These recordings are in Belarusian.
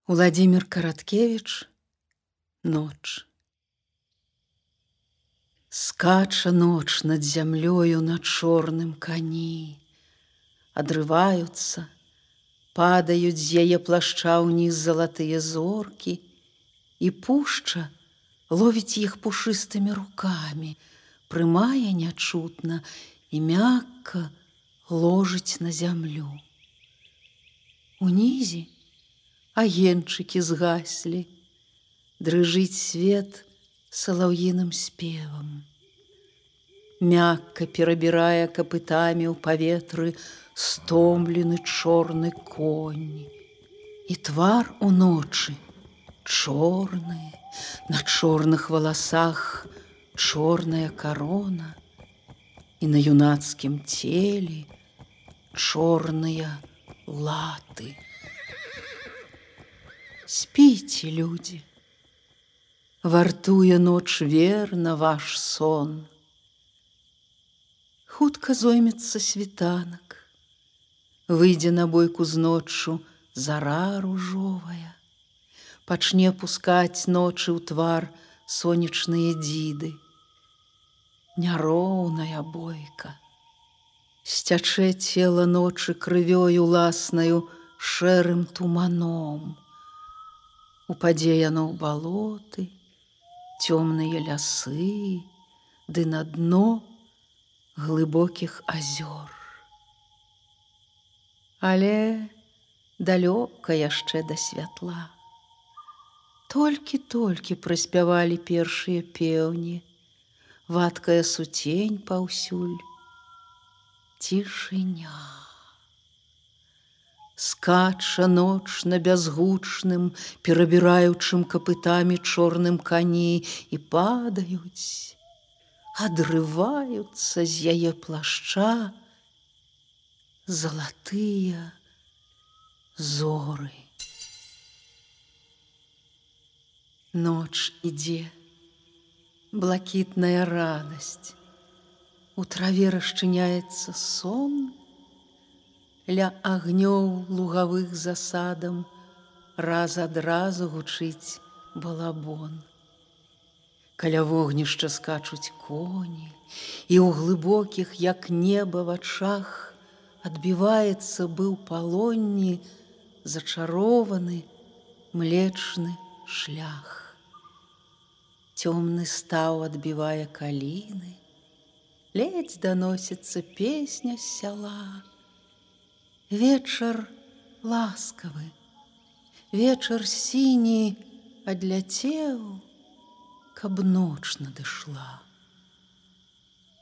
Владимир Караткевич «Ноч». Скача ноч над зямлёю на чорным кані. Адрываюцца, падаюць з яе плашча ўніз залатыя зоркі, і пушча ловіць іх пушыстымі рукамі, прымае нячутна і мякка ложыць на зямлю. Унізе агеньчыкі згаслі, дрыжыць свет салаўіным спевам. Мякка перабірае капытамі ў паветры стомлены чорны конь. І твар у ночы чорны, на чорных валасах чорная карона, і на юнацкім целе чорныя латы. Спіце, людзі, вартуе ноч верна ваш сон. Хутка зоймецца світанак, выйдзе на бойку з ноччу зара ружовая, пачне пускаць ночы ў твар сонечныя дзіды. Няроўная бойка, сцячэ цела ночы крывёю уласнаю шэрым туманом. Упадзе яно ў балоты, цёмныя лясы, ды на дно глыбокіх азёр. Але далёка яшчэ да святла. Толькі-толькі праспявалі першыя пеўні, вадкая суцень паўсюль, цішыня. Скача ноч на бязгучным, перабіраючым капытамі чорным кані, і падаюць, адрываюцца з яе плашча залатыя зоры. Ноч ідзе, блакітная радасць, у траве расчыняецца сон, ля агнёў лугавых засадам раз ад разу гучыць балабон. Каля вогнішча скачуць коні, і ў глыбокіх, як неба, вачах адбіваецца быў палонні зачарованы млечны шлях. Цёмны стаў адбівае каліны, ледзь даносіцца песня з сяла. Вечар ласкавы, вечар сіні адляцеў, каб ноч надышла.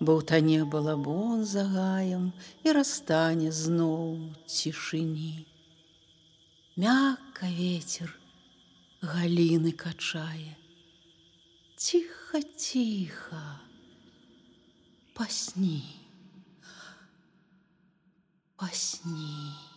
Баўтане балабон за гаем і растане зноў цішыні. Мякка вецер галіны качае. Ціха-ціха, пасні, пасні.